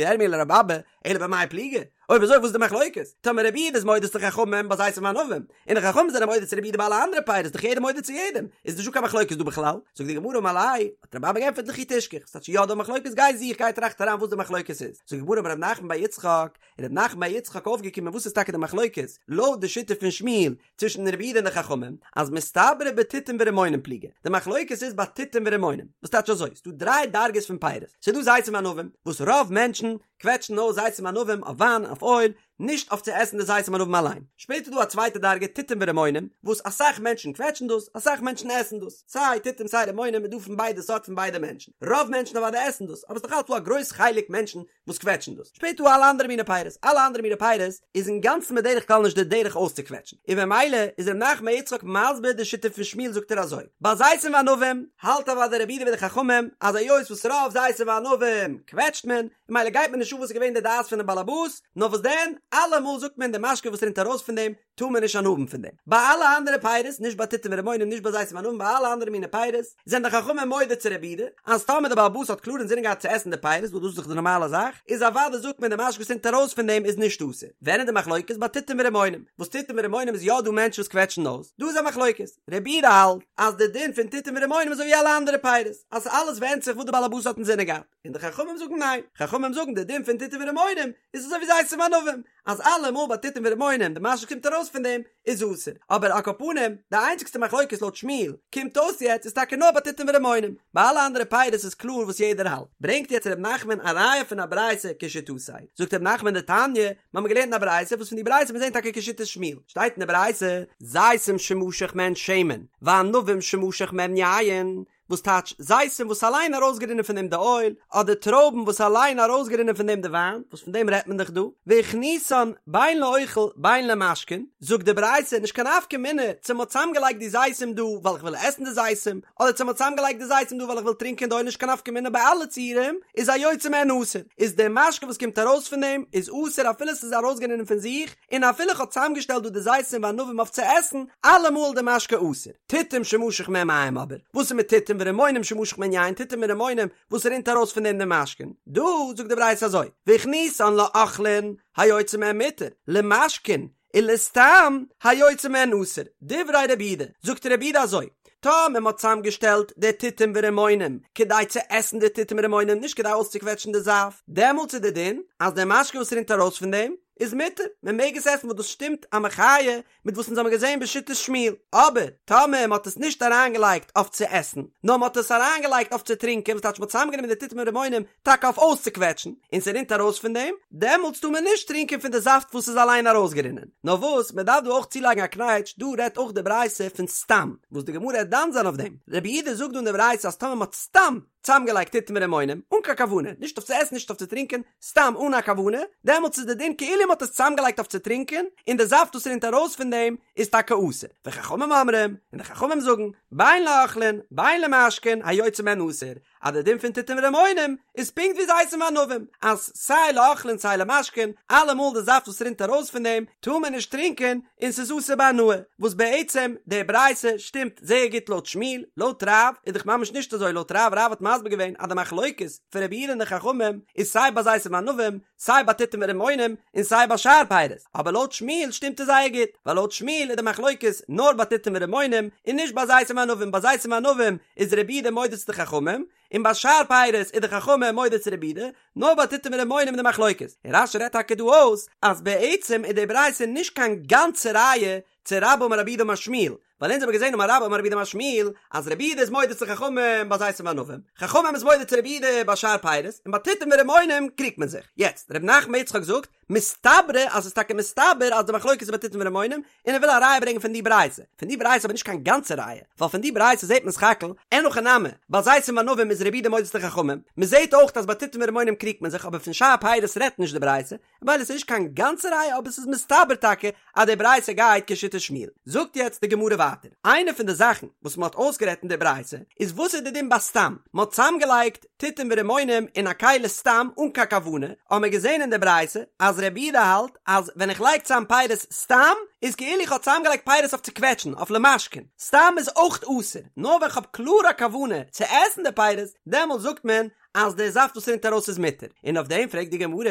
ירמי' לרבי אבא, אלא במאי פליגי? אויב אזוי וואס איז די מחלוקת? טאמער רבי יהודה איז מודה צו די חכמים ביי זיתים וענבים, און די חכמים זענען מודה צו רבי יהודה ביי אלע אנדערע פירות איז דאך יעדער מודה צו יעדעם, איז נישטא קיין מחלוקת דא בכלל? זאגט די גמרא אמר ליה, האט רבי אבא געענטפערט לכי תשכח, ס'טייטש יא דא מחלוקת גיי זוך גיי טראכט אריין וואס די מחלוקת איז, זאגט די גמרא אמר רב נחמן בר יצחק, איז רב נחמן בר יצחק אויפגעקומען וואס איז טאקע די מחלוקת לויט די שיטה פון שמואל צווישן רבי יהודה און די חכמים, אז מסתברא בתותים ורימונים פליגי, די מחלוקת איז ביי תותים ורימונים, וואס טייטש אזוי, ס'דא דריי דרגות פון פירות, ס'דא זיתים וענבים, וואס רוב מענטשן קוועטשן אויס זיתים וענבים אויף וויין אויף אויל, נישט אויף צו עסן די זיתים וענבים אליין. שפעטער איז דא א צווייטע דרגה תותים ורימונים, וואס אסאך מענטשן קוועטשן דאס, אסאך מענטשן עסן דאס, סיי תותים סיי רימונים איז דא פון ביידע סארט פון ביידע מענטשן, רוב מענטשן אוודאי עסן דאס, אבער ס'איז נאך אלץ דא א גרויס חלק מענטשן וואס קוועטשן דאס. שפעטער דא אלע אנדערע מיני פירות, אלע אנדערע מיני פירות איז אינגאנצן בדרך כלל נישט די דרך אויסצוקוועטשן, און במילא איז ר' נחמן בר יצחק מסביר די שיטה פון שמואל זאגט ער אזוי, ביי זיתים וענבים האלט אוודאי רבי יהודה ווי די חכמים אז היות וואס רוב זיתים וענבים קוועטשט מען, און ממילא גייט מען נישט אן וואס איז געווען די דעת פונעם באלעבאס, נאר וואס דען, אלעמאל זאגט מען די משקה וואס רינט ארויס פון דעם טאר מען נישט הנאה האבן פון דעם. ביי אלע אנדערע פירות, נישט ביי תותים ורימונים, נישט ביי זיתים וענבים, ביי אלע אנדערע מיני פירות, זענען די חכמים מודה צו רבי יהודה, אז טאמער די בעל הבית האט קלאר אינזינען געהאט צו עסן די פירות, וואס דאס איז דאך די נארמאלע זאך, איז אוודאי זאגט מען די משקה וואס רינט ארויס פון דעם איז נישט אסור. ווען איז די מחלוקת? ביי תותים ורימונים. וואס תותים ורימונים איז יא דא מענטשן וואס קוועטשן אויס, דא איז א מחלוקת. רבי יהודה האלט אז די דין פון תותים ורימונים איז אזוי ווי אלע אנדערע פירות, אז אלעס ווענדט זיך וואס די בעל הבית האט אינזינען געהאט. און די חכמים זאגן ניין, חכמים זאגן די דין פון תותים ורימונים איז אזוי ווי זיתים וענבים, אז אלעמאל ביי תותים ורימונים די משקה קומט ארויס פון דעם איז אסור, אבער על כל פנים די איינציגסטע מחלוקת לויט שמואל קומט אויס יעצט איז טאקע נאר ביי תותים ורימונים, ביי אלע אנדערע פירות איז קלאר וואס יעדער האלט, ברענגט יעצט ר' נחמן א ראיה פון א ברייתא כשיטתו, זאגט ר' נחמן דתניא, מיר האבן געלערנט אין א ברייתא וואס פון די ברייתא מיר זעהן טאקע כשיטת שמואל, שטייט אין די ברייתא, זיתים שמשך מהן שמן, וענבים שמשך מהן יין. וואס טייטש זיתים וואס אליין ארויסגערינען פון דעם די אויל, אדער טרויבן וואס אליין ארויסגערינען פון דעם די וויין, וואס פון דעם רעדט מען דאך דא, והכניסן בין לאוכל בין למשקין, זאגט די ברייתא נישט קיין נפקא מינה צו מ'האט צוזאמגעלייגט די זיתים דא ווייל איך וויל עסן די זיתים, אדער צו מ'האט צוזאמגעלייגט די זיתים דא ווייל איך וויל טרינקען די אויל נישט קיין נפקא מינה ביי אלע ציורים איז היוצא מהן אסור, איז די משקה וואס קומט ארויס פון דעם איז אסור אפילו ס'איז ארויסגערינען פון זיך, און אפילו איך האב צוזאמגעשטעלט דא די זיתים וענבים אויף צו עסן, אלעמאל די משקה אסור. תותים שמשך מהם מים אבער, וואס איז מיט תותים ורימונים שמשך מהן יין, תותים און רימונים וואס רינט ארויס פון דעם די משקין? דא זאגט די ברייתא אזוי, והכניסן לאוכלין היוצא מהן מותר, למשקין ולסתם היוצא מהן אסור, דברי רבי יהודה, זאגט רבי יהודה אזוי, טאמער מ'האט צוזאמגעשטעלט די תותים ורימונים כדי צו עסן די תותים ורימונים נישט כדי אויסצוקוועטשן די זאפט, דעמאלטס איז די דין אז די משקה וואס רינט ארויס פון דעם איז מותר, מען מעג עס עסן וואס דאס שטימט א מחיה מיט וואס אונז האבן געזען בשיטת שמואל, אבער טאמער מען האט עס נישט אריינגעלייגט אויף צו עסן, נאר מען האט עס אריינגעלייגט אויף צו טרינקען, וואס טייטש מען האט צוזאמגענומען די תותים און רימונים טאקע אויף אויסצוקוועטשן, און ס'רינט ארויס פון דעם, דעמאלטס טאר מען נישט טרינקען פון די זאפט וואס איז אליין ארויסגערינען. נאר וואס, מען דארף דא אויך צולייגן א קנייטש, דא רעדט אויך די ברייתא פון סתם, וואס די גמרא וועט דן זיין אויף דעם. רבי יהודה זאגט דא אין די ברייתא אז טאמער מען האט סתם צוזאמגעלייגט תותים און רימונים, אן קיין כוונה, נישט אויף צו עסן נישט אויף צו טרינקען, סתם אן א כוונה, דעמאלטס איז די דין כאילו מען האט עס צוזאמגעלייגט אויף צו טרינקען, און די זאפט וואס רינט ארויס פון דעם איז טאקע אסור. וחכמים אומרים, און די חכמים זאגן, בין לאוכלין, בין למשקין, היוצא מהן אסור, אז די דין פון תותים ורימונים איז פונקט ווי זיתים וענבים, אז סיי לאוכלין סיי למשקין, אלעמאל די זאפט וואס רינט ארויס פון דעם טאר מען נישט טרינקען און ס'איז אסור בהנאה, וואס בעצם די ברייתא שטימט זייער גוט לויט שמואל, לויט רב איז דאך ממש נישט אזוי, לויט רב, רב האט מסביר געווען אז די מחלוקת פון רבי יהודה און די חכמים איז סיי ביי זיתים וענבים, סיי ביי תותים ורימונים, און סיי ביי שאר פירות, אבער לויט שמואל שטימט עס זייער גוט, ווייל לויט שמואל איז די מחלוקת נאר ביי תותים ורימונים, און נישט ביי זיתים וענבים, ביי זיתים וענבים איז רבי יהודה מודה צו די חכמים, און ביי שאר פירות איז די חכמים מודה צו רבי יהודה, נאר ביי תותים ורימונים איז די מחלוקת, און רש"י רעדט טאקע דא אויס אז בעצם איז די ברייתא נישט קיין גאנצע ראיה צו רבה אמר רב יהודה אמר שמואל, ווייל אונז האבן געזען אמר רבה אמר רב יהודה אמר שמואל אז רבי יהודה איז מודה צו חכמים ביי זיתים וענבים, חכמים איז מודה צו רבי יהודה ביי שאר פירות, און ביי תותים ורימונים קריגט מען זיך. יעצט, ר' נחמן בר יצחק זאגט, מסתברא אז ס'איז טאקע מסתבר אז די מחלוקת איז ביי תותים ורימונים, און ער וויל א ראיה ברענגען פון די ברייתא. פון די ברייתא אבער נישט קיין גאנצע ראיה, ווייל פון די ברייתא זעט מען סך הכל, אין הכי נמי, ביי זיתים וענבים איז רבי יהודה מודה צו חכמים, מ'זעט אויך אז ביי תותים ורימונים קריגט מען זיך אבער פון שאר פירות רעדט נישט די ברייתא, ווייל עס איז נישט קיין גאנצע ראיה אבער עס איז מסתבר טאקע אז די ברייתא גייט כשיטת שמואל. זאגט יעצט די גמרא ווייטער, איינע פון די זאכן וואס מען האט אויסגערעדט אין די ברייתא איז וואס איז די דין ביי סתם, מען האט צוזאמגעלייגט תותים ורימונים אין א כלי סתם אן קיין כוונה, האט מען געזען אין די ברייתא אז רבי יהודה האלט אז ווען איך לייג צוזאם פירות סתם איז כאילו איך האב צוזאמגעלייגט פירות אויף צו קוועטשן, אויף למשקין, סתם איז אויך אסור, נאר ווען כ'האב קלאר א כוונה צו עסן די פירות דעמאלט זאגט מען אז דער זאפט וואס רינט ארויס איז מותר, און אויף דעם פרעגט די גמרא,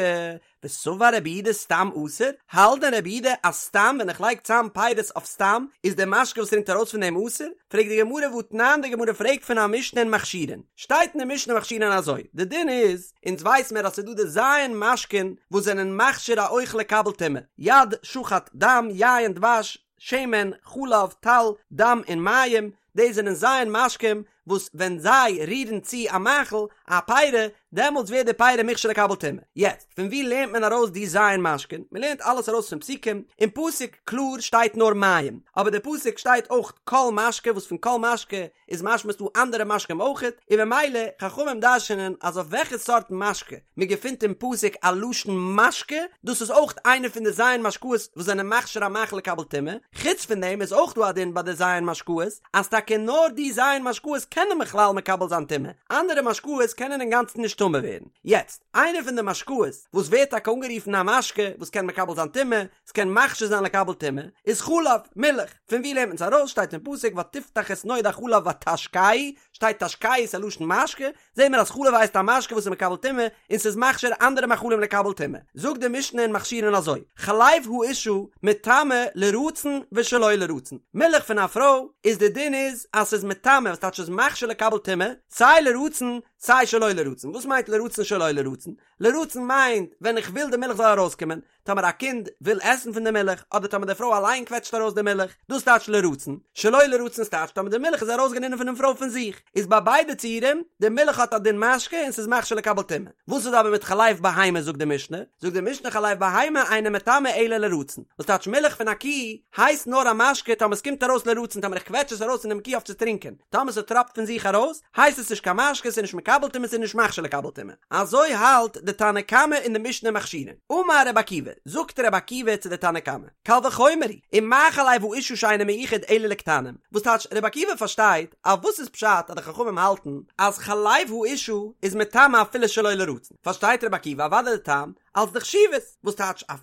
וסבר רבי יהודה סתם אסור, האלט דען רבי יהודה אז סתם ווען איך לייג צאם פירות אויף סתם איז דער משקה וואס רינט ארויס פון דעם אסור? פרעגט די גמרא והתנן די גמרא פרעגט פון א משנה אין מכשירין, שטייט אין די משנה מכשירין אזוי, די דין איז, אונז ווייס מיר אז ס'איז דא די ז' משקין וואס זענען מכשיר א אוכל לקבל טומאה, יד, שחט, דם, יין, דבש, שמן, חלב, טל, דם און מים, דאס זענען ז' משקים וואס ווען זיי רירן צו א מאכל, א פירה, דעמאלטס ווערט די פירה מוכשר לקבל טומאה. יעצט, פון וואו לערנט מען ארויס די ז' משקין? מען לערנט אלעס ארויס פון פסוקים, אין פסוק קלאר שטייט נאר מים, אבער די פסוק שטייט אויך כל משקה וואס פון כל משקה איז משמע ס'דא אנדערע משקים אויכעט, און ממילא חכמים דרש'נען אז אויף וועלכע סארט משקה מען געפינט אין פסוק א לשון משקה, דאס איז אויך איינע פון די ז' משקאות וואס זענען מכשיר א מאכל לקבל טומאה, חוץ פון דעם איז אויך דא א דין ביי די ז' משקאות אז טאקע נאר די ז' משקאות קענען בכלל מקבל זיין טומאה, אנדערע משקאות קענען אינגאנצן נישט טמא ווערן. יעצט, איינע פון די משקאות וואס ווערט טאקע אנגערופן א משקה וואס קען מקבל זיין טומאה, ס'קען מכשיר זיין לקבל טומאה, איז חלב, מילך. פון וואו לערנט מען עס ארויס? שטייט אין פסוק ותפתח את נאד החלב ותשקהו, שטייט תשקהו איז א לשון משקה, זעהן מיר אז חלב הייסט א משקה וואס איז מקבל טומאה, און ס'איז מכשיר אנדערע מאכלים לקבל טומאה. זאגט די משנה אין מכשירין אזוי, חלב האשה מטמא לרצון ושלא לרצון, מילך פון א פרוי איז די דין איז אז ס'איז מטמא וואס טייטש ס'איז מכשיר לקבל טומאה, סיי לרצון סיי שלא לרצון, וואס מיינט לרצון שלא לרצון? לרצון מיינט ווען איך וויל די מילך זאל ארויסקומען, טאמער א קינד וויל עסן פון די מילך, אדער טאמער די פרוי אליין קוועטשט ארויס די מילך, דאס טייטש לרצון, שלא לרצון ס'טייטש טאמער די מילך איז ארויסגערינען פונעם פרוי פון זיך. איז ביי ביידע ציורים, די מילך האט א דין משקה און ס'איז מכשיר לקבל טומאה. וואס איז אבער מיט חלב בהמה זאגט די משנה? זאגט די משנה חלב בהמה אינו מטמא אלא לרצון. וואס טייטש מילך פון א קי הייסט נאר א משקה טאמער ס'קומט ארויס לרצון טאמער איך קוועטש עס ארויס פונעם קי אויף צו טרינקען. טאמער ס'טראפט פון זיך ארויס הייסט עס נישט קיין משקה ס'איז נישט מקבל טומאה ס'איז נישט מכשיר לקבל טומאה. אזוי האלט די תנא קמא אין די משנה מכשירין. אמר רבי עקיבא, זאגט רבי עקיבא צו די תנא קמא, קל וחומר הוא, ומה חלב האשה שאינו מיוחד אלא לקטנים, וואס טייטש רבי עקיבא פארשטייט אז וואס איז פשט אז די חכמים האלטן אז חלב האשה איז מטמא אפילו שלא לרצון, פארשטייט רבי עקיבא אוודאי די טעם אלס די חשיבות, וואס טייטש א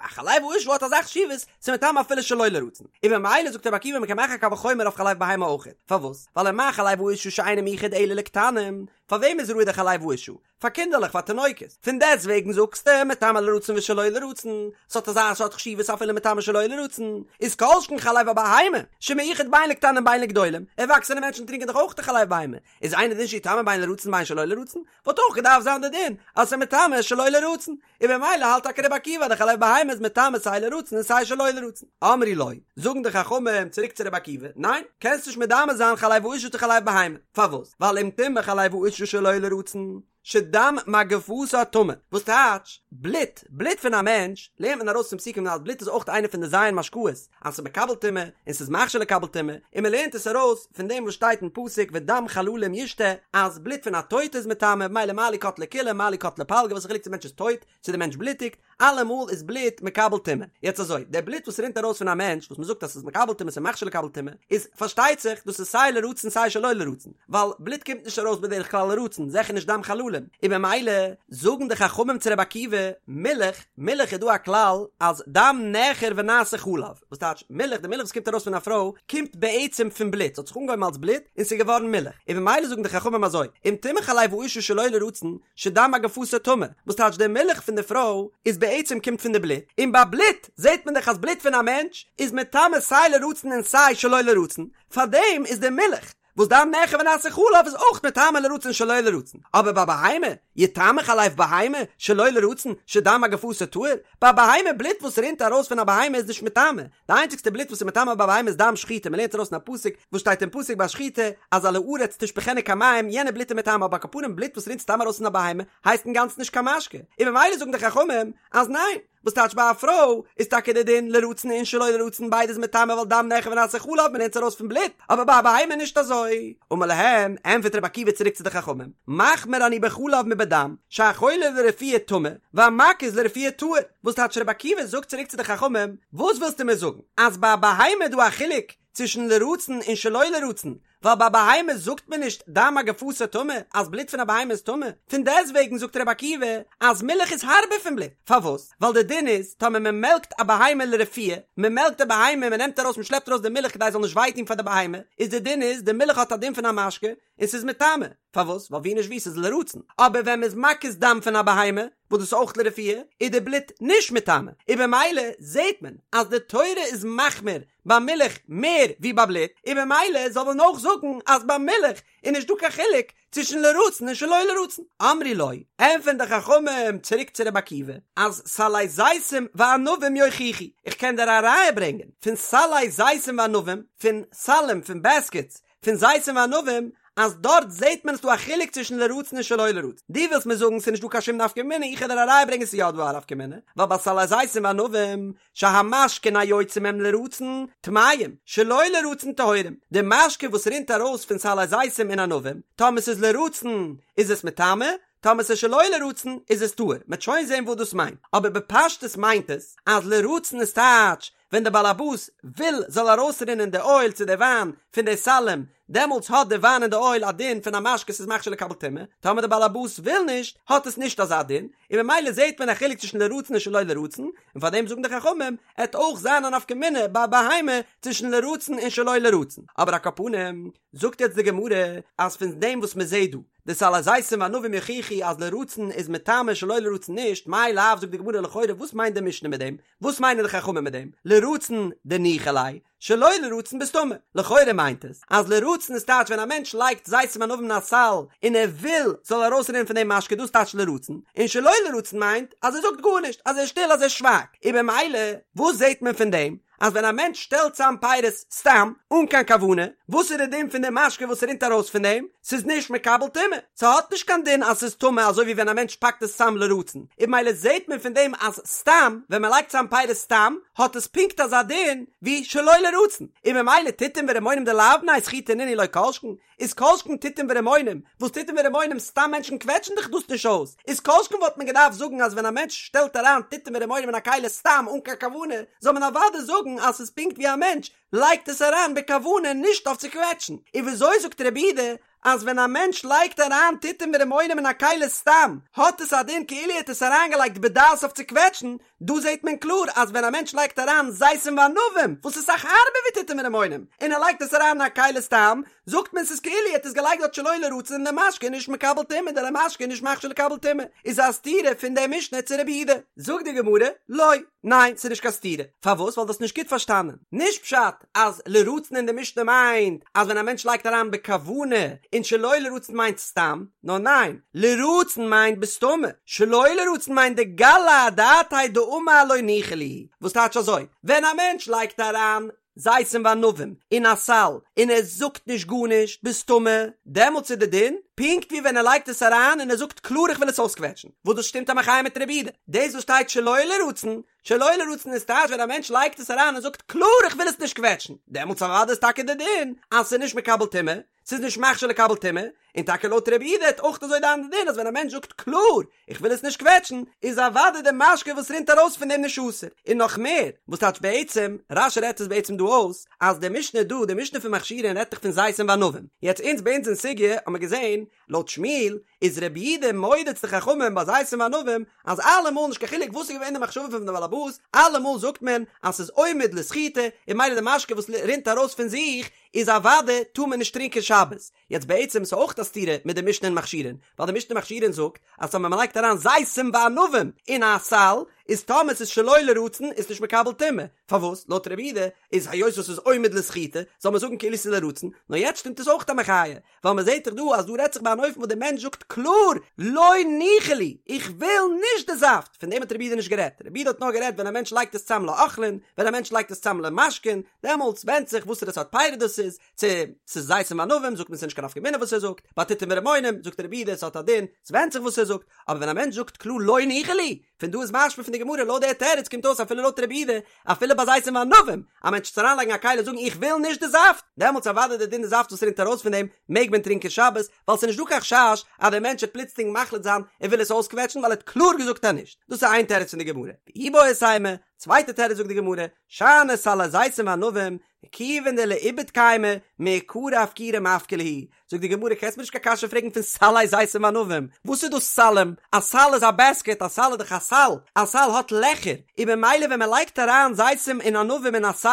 חלב האשה האט אזא חשיבות ס'איז מטמא אפילו שלא לרצון, און ממילא זאגט רבי עקיבא מ'קען מאכן א קל וחומר אויף חלב בהמה אויכעט, פארוואס? ווייל ומה חלב האשה שאינו מיוחד אלא לקטנים, פאר וועם איז ראוי די חלב האשה? פאר קינדערלעך פאר תינוקות, פון דעסט וועגן זאגסטו מטמא לרצון ושלא לרצון, ס'האט אזא סארט חשיבות אפילו מטמא שלא לרצון, איז כל שכן חלב הבהמה, שמיוחד בין לקטנים בין לגדולים, ערוואקסענע מענטשן טרינקען דאך אויך די חלב בהמה, איז אינו דין שיטמא בין לרצון בין שלא לרצון, וואלט אויך געדארפט זיין די דין אז ס'איז מטמא שלא לרצון, און במילא האלט טאקע רבי עקיבא אז די חלב בהמה איז מטמא סיי לרצון און סיי שלא לרצון. אמרו לו, זאגן די חכמים צוריק צו רבי עקיבא, ניין, קענסט נישט מדמה זיין חלב האשה צו חלב בהמה, פארוואס? ווייל אם טמא חלב האשה שלא לרצון, שדם מגפתה טמא, וואס טייטש, בלוט, בלוט פון א מענטש, לערנט מען ארויס פון פסוקים אז בלוט איז אויך איינע פון די ז' משקאות, אז ס'איז מקבל טומאה, און ס'איז מכשיר לקבל טומאה, און מ'לערנט עס ארויס פון דעם וואס שטייט אין פסוק ודם חללים ישתה, אז בלוט פון א טויטע איז מטמא, ממילא מה לי קטלה כולה מה לי קטלה פלגה, וואס איז חילוק צו די מענטש איז טויט, צו די מענטש בלוטיגט, אלעמאל איז בלוט מקבל טומאה. יעצט אזוי, דער בלוט וואס רינט ארויס פון א מענטש, וואס מ'זאגט אז ס'איז מקבל טומאה ס'איז מכשיר לקבל טומאה, איז פארשטייט זיך דאס איז סיי לרצון סיי שלא לרצון, ווייל בלוט קומט נישט ארויס בדרך כלל לרצון, זיכער נישט דם חללים, און במילא זאגן די חכמים צו רבי עקיבא, מילך, מילך איז דא א כלל אז דם נעכר ונעשה חלב, וואס טייטש מילך, די מילך וואס קומט ארויס פון א פרוי קומט בעצם פון בלוט, ס'האט זיך אנגעהויבן אלס בלוט און ס'איז געווארן מילך, און במילא זאגן די חכמים אזוי, אם טמא חלב האשה שלא לרצון, שדם מגפתה טמא, וואס טייטש די מילך פון די פרוי איז בעצם קומט פון די בלוט, און ביי בלוט זעט מען דאך אז בלוט פון א מענטש איז מטמא סיי לרצון און סיי שלא לרצון, פארדעם איז די מילך וואס דם נעכר ונעשה חלב איז אויך מטמא לרצון שלא לרצון, אבער ביי בהמה, יטמא חלב בהמה שלא לרצון שדם מגפתה טהור, ביי בהמה בלוט וואס רינט ארויס פון א בהמה איז נישט מטמא, די איינציגסטע בלוט וואס איז מטמא ביי בהמה איז דם שחיטה, מען לערנט ארויס אין א פסוק וואס שטייט אין פסוק ביי שחיטה אז על הארץ תשפכנו כמים, יענע בלוט איז מטמא, אבער על כל פנים בלוט וואס רינט סתם ארויס פון א בהמה הייסט אינגאנצן נישט קיין משקה, און ממילא זאגן די חכמים אז ניין, וואס טייטש ביי א פרוי איז טאקע די דין לרצון און שלא לרצון ביידע איז מטמא ווייל דם נעכר ונעשה חלב מען לערנט עס ארויס פון בלוט, אבער ביי א בהמה נישט אזוי. אמר להם, ענטפערט רבי עקיבא צוריק צו די חכמים, מחמיר אני בחלב מבדם, שהחולב לרפואה טמא, והמקיז לרפואה טהור, וואס טייטש רבי עקיבא זאגט צוריק צו די חכמים, וואס ווילסטו מיר זאגן, אז ביי א בהמה איז דא א חילוק צווישן לרצון און שלא לרצון, ווייל ביי בהמה זאגט מען נישט דם מגפתה טמא, אז בלוט פון א בהמה איז טמא, פון דעסטוועגן זאגט רבי עקיבא אז מילך איז הארבער פון בלוט, פארוואס? ווייל די דין איז, טאמער מען מעלקט א בהמה לרפואה, מען מעלקט די בהמה, מען נעמט ארויס מען שלעפט ארויס די מילך כדי עס זאל נישט וויי טון פאר די בהמה, איז די דין איז, די מילך האט א דין פון א משקה, און ס'איז מטמא, פארוואס? ווייל ווי נישט ווי ס'איז לרצון, אבער ווען מ'איז מקיז דם פון א בהמה, וואס דאס איז אויך לרפואה, איז די בלוט נישט מטמא, און במילא זעט מען אז די תורה איז מחמיר ביי מילך מער ווי ביי בלוט, און במילא זאל מען אויך זאגן אז ביי מילך איז נישט דא קיין חילוק צווישן לרצון און שלא לרצון. אמרו לו, ענטפערן די חכמים צוריק צו רבי עקיבא, אז סלי זיתים וענבים יוכיחו, איך קען דיר א ראיה ברענגען פון סלי זיתים וענבים, פון סלים, פון בעסקעטס, פון זיתים וענבים, אז דארט זעהט מען אז ס'דא א חילוק צווישן לרצון און שלא לרצון. דו ווילסט מיר זאגן ס'איז נישט דא קיין שום נפקא מינה, איך וועל דיר א ראיה ברענגען ס'איז יא דא א נפקא מינה, ווייל ביי סלי זיתים וענבים, שהמשקין היוצא מהם לרצון, טמאים, שלא לרצון טהורים, די משקה וואס רינט ארויס פון סלי זיתים און ענבים, טאמער ס'איז לרצון איז עס מטמא, טאמער ס'איז שלא לרצון איז עס טהור, מ'עט שוין זעהן וואס דאס מיינט, אבער בפשטות מיינט עס אז לרצון איז טייטש ווען דער באלעבאס וויל זאל ארויסרינען די אויל צו די וויין פון די סלים, דעמאלטס האט די וויין און די אויל א דין פון א משקה ס'איז מכשיר לקבל טומאה, טאמער די באלעבאס וויל נישט האט עס נישט אזא דין, און ממילא זעהט מען א חילוק צווישן לרצון און שלא לרצון, און פאר דעם זאגן די חכמים, עט אויך זיין א נפקא מינה ביי בהמה צווישן לרצון און שלא לרצון, אבער על כל פנים זאגט יעצט די גמרא אז פון דעם וואס מען זעהט דא די סלי זיתים וענבים יוכיחו אז לרצון איז מטמא שלא לרצון נישט, מאי לאו זאגט די גמרא לכאורה וואס מיינט די משנה מיט דעם? וואס מיינען די חכמים מיט דעם? לרצון דניחא ליה, שלא לרצון בסתמא. לכאורה מיינט עס אז לרצון איז טייטש ווען א מענטש לייגט זיתים וענבים אין א סל און ער וויל ס'זאל ארויסרינען פון דעם משקה דאס טייטש לרצון, און שלא לרצון מיינט אז ער זאגט גארנישט, אז ער איז שטיל אז ער שווייגט. און במילא וואס זעט מען פון דעם? אז ווען א מענטש שטעלט צאם פירות סתם, אן קיין כוונה, וואס איז די דין פון די משקה וואס רינט ארויס פון דעם? ס'איז נישט מקבל טומאה, ס'האט נישט קיין דין אז ס'איז טמא אזוי ווי ווען א מענטש פאקט עס צאם לרצון, און ממילא זעט מען פון דעם אז סתם, ווען מ'לייגט צאם פירות סתם, האט עס פונקט אזא דין ווי שלא לרצון, און ממילא תותים ורימונים דלאו בני סחיטה נינהו לא כל שכן, איז כל שכן תותים ורימונים, וואס תותים ורימונים סתם מענטשן קוועטשן דאך דאס נישט אויס, איז כל שכן וואלט מען געדארפט זאגן אז ווען א מענטש שטעלט אריין תותים ורימונים אין א כלי סתם אן קיין כוונה, זאל מען אוודאי זאגן אז ס'איז פונקט ווי א מענטש לייגט עס אריין בכוונה נישט אויף צו קוועטשן, און וויאזוי זאגט רבי יהודה אז ווען א מענטש לייגט אריין תותים ורימונים אין א כלי סתם האט עס א דין כאילו ער האט עס אריינגעלייגט בדעת אויף צו קוועטשן, דא זעט מען קלאר אז ווען א מענטש לייגט אריין זיתים וענבים וואס איז אסאך הארבער ווי תותים ורימונים און ער לייגט עס אריין אין א כלי סתם זאגט מען ס'איז כאילו ער האט עס געלייגט דארט שלא לרצון און די משקה איז נישט מקבל טומאה די משקה איז נישט מכשיר לקבל טומאה איז א סתירה פון די משנה צו רבי יהודה. זאגט די גמרא, לא, ניין ס'איז נישט קיין סתירה, פארוואס ווייל דו האסט נישט גוט פארשטאנען, נישט פשט אז לרצון אין די משנה מיינט אז ווען א מענטש לייגט אריין בכוונה און שלא לרצון מיינט סתם, נאר ניין, לרצון מיינט בסתמא, שלא לרצון מיינט דגלי אדעתיה דאמר לא ניחא לי, וואס טייטש אזוי, ווען א מענטש לייגט אריין זיתים וענבים אין א סל און ער זאגט נישט גארנישט בסתמא, דעמאלטס איז די דין פונקט ווי ווען ער לייגט עס אריין און ער זאגט קלאר איך וויל עס אויסקוועטשן, וואס דאס שטימט א מחיה מיט רבי יהודה, דאס וואס שטייט שלא לרצון שלא לרצון איז טייטש ווען א מענטש לייגט עס אריין און זאגט קלאר איך וויל עס נישט קוועטשן, דעמאלטס אוודאי איז טאקע די דין אז ס'איז נישט מקבל טומאה, ס'איז נישט מכשיר לקבל טומאה, און טאקע לויט רבי יהודה וועט אויך אזוי זיין די דין אז ווען א מענטש זאגט קלאר איך וויל עס נישט קוועטשן, איז אוודאי די משקה וואס רינט ארויס פון דעם נישט אסור, און נאך מער, וואס טייטש בעצם, רש"י רעדט עס בעצם דא אויס, אז די משנה דא, די משנה פון מכשירין רעדט דאך פון זיתים וענבים, יעצט אונז ביי אונז אין סוגיא האט מען געזען, לויט שמואל, איז רבי יהודה מודה צו די חכמים ביי זיתים וענבים אז אלעמאל נישט קיין חילוק וואס איז געווען די מחשבה פון די בעל הבית, אלעמאל זאגט מען אז ס'איז עומד לסחיטה און ממילא די משקה וואס רינט ארויס פון זיך איז אוודאי טאר מען נישט טרינקען שבת. יעצט בעצם איז אויך א סתירה מיט די משנה אין מכשירין, ווייל די משנה אין מכשירין זאגט אז טאמער מ'לייגט אריין זיתים וענבים אין א סל איז טאמער ס'איז שלא לרצון איז נישט מקבל טומאה, פארוואס? לויט רבי יהודה איז היות וואס ס'איז עומד לסחיטה זאל מען זאגן כאילו ס'איז לרצון, נאר יעצט שטימט עס אויך א מחיה, ווייל מען זעט דאך דא אז דא רעדט זיך ביי אן אופן וואס דער מענטש זאגט קלאר לא ניחא לי, איך וויל נישט די זאפט, פון דעם האט רבי יהודה נישט גערעדט, רבי יהודה האט נאר גערעדט ווען א מענטש לייגט עס צאם לאוכלין, ווען א מענטש לייגט עס צאם למשקין, דעמאלטס ווענדט זיך וואסערע סארט פירות דאס איז, צו ס'איז זיתים וענבים זאגט מען ס'איז נישט קיין נפקא מינה וואס ער זאגט, ביי תותים ורמונים זאגט רבי יהודה ס'האט א דין, ס'ווענדט זיך וואס ער זאגט, אבער ווען א מענטש זאגט קלאר לא ניחא לי, פון דא איז משמע פון די גמרא לויט דער תירוץ קומט אויס אפילו לויט רבי יהודה אפילו ביי זיתים וענבים א מענטש צו אריינלייגן א כלי און זאגן איך וויל נישט די זאפט דעמאלטס אוודאי די דין די זאפט וואס רינט ארויס פון דעם מעג מען טרינקען שבת ווייל ס'איז נישט דא קיין חשש אז דער מענטש וועט פלוצלינג מחליט זיין ער וויל עס אויסקוועטשן ווייל ער האט קלאר געזאגט אז נישט דאס איז איין תירוץ פון די גמרא ואיבעית אימא צווייטע תירוץ זאגט די גמרא שאני סלי זיתים וענבים כיוון דלאיבוד קיימי, מעיקרא אפקורי מפקר להו, זאגט די גמרא קענסט מיר נישט קיין קשיא פרעגן פון סלי זיתים וענבים, וואס איז דאס סלים? א סל איז א בעסקעט, א סל איז דאך א סל, א סל האט לעכער, און ממילא ווען מען לייגט אריין זיתים און ענבים אין א סל,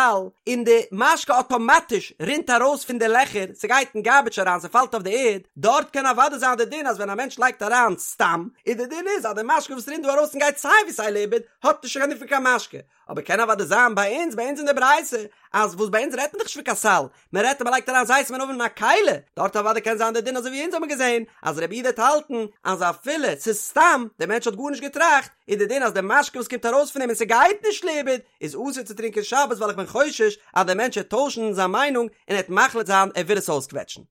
און די משקה אטאמאטיש רינט ארויס פון די לעכער, ס'גייט אין גארביטש אריין, ס'פאלט אויף די ערד, דארט קען אוודאי זיין די דין אז ווען א מענטש לייגט אריין סתם, איז די דין איז אז די משקה וואס רינט דא ארויס און גייט סיי ווי סיי לאיבוד, האט נישט קיין דין פון קיין משקה. אבער קען אוודאי זיין ביי אונז, ביי אונז אין די ברייתא, אז וואס ביי אונז רעדט מען דאך נישט פון קיין סל, מען רעדט אז מען לייגט אריין זיתים וענבים אין א כלי, דארט אוודאי קען זיין די דין אזוי ווי אונז האבן געזען, אז רבי יהודה וועט האלטן אז אפילו ס'איז סתם, דער מענטש האט גארנישט געטראכט, איז די דין אז די משקה וואס קומט ארויס פון אים און ס'גייט נישט לאיבוד, איז אסור צו טרינקען שבת ווייל איך בין חושש אז דער מענטש וועט טוישן זיין מיינונג און ער וועט מחליט זיין ער וויל עס אויסקוועטשן.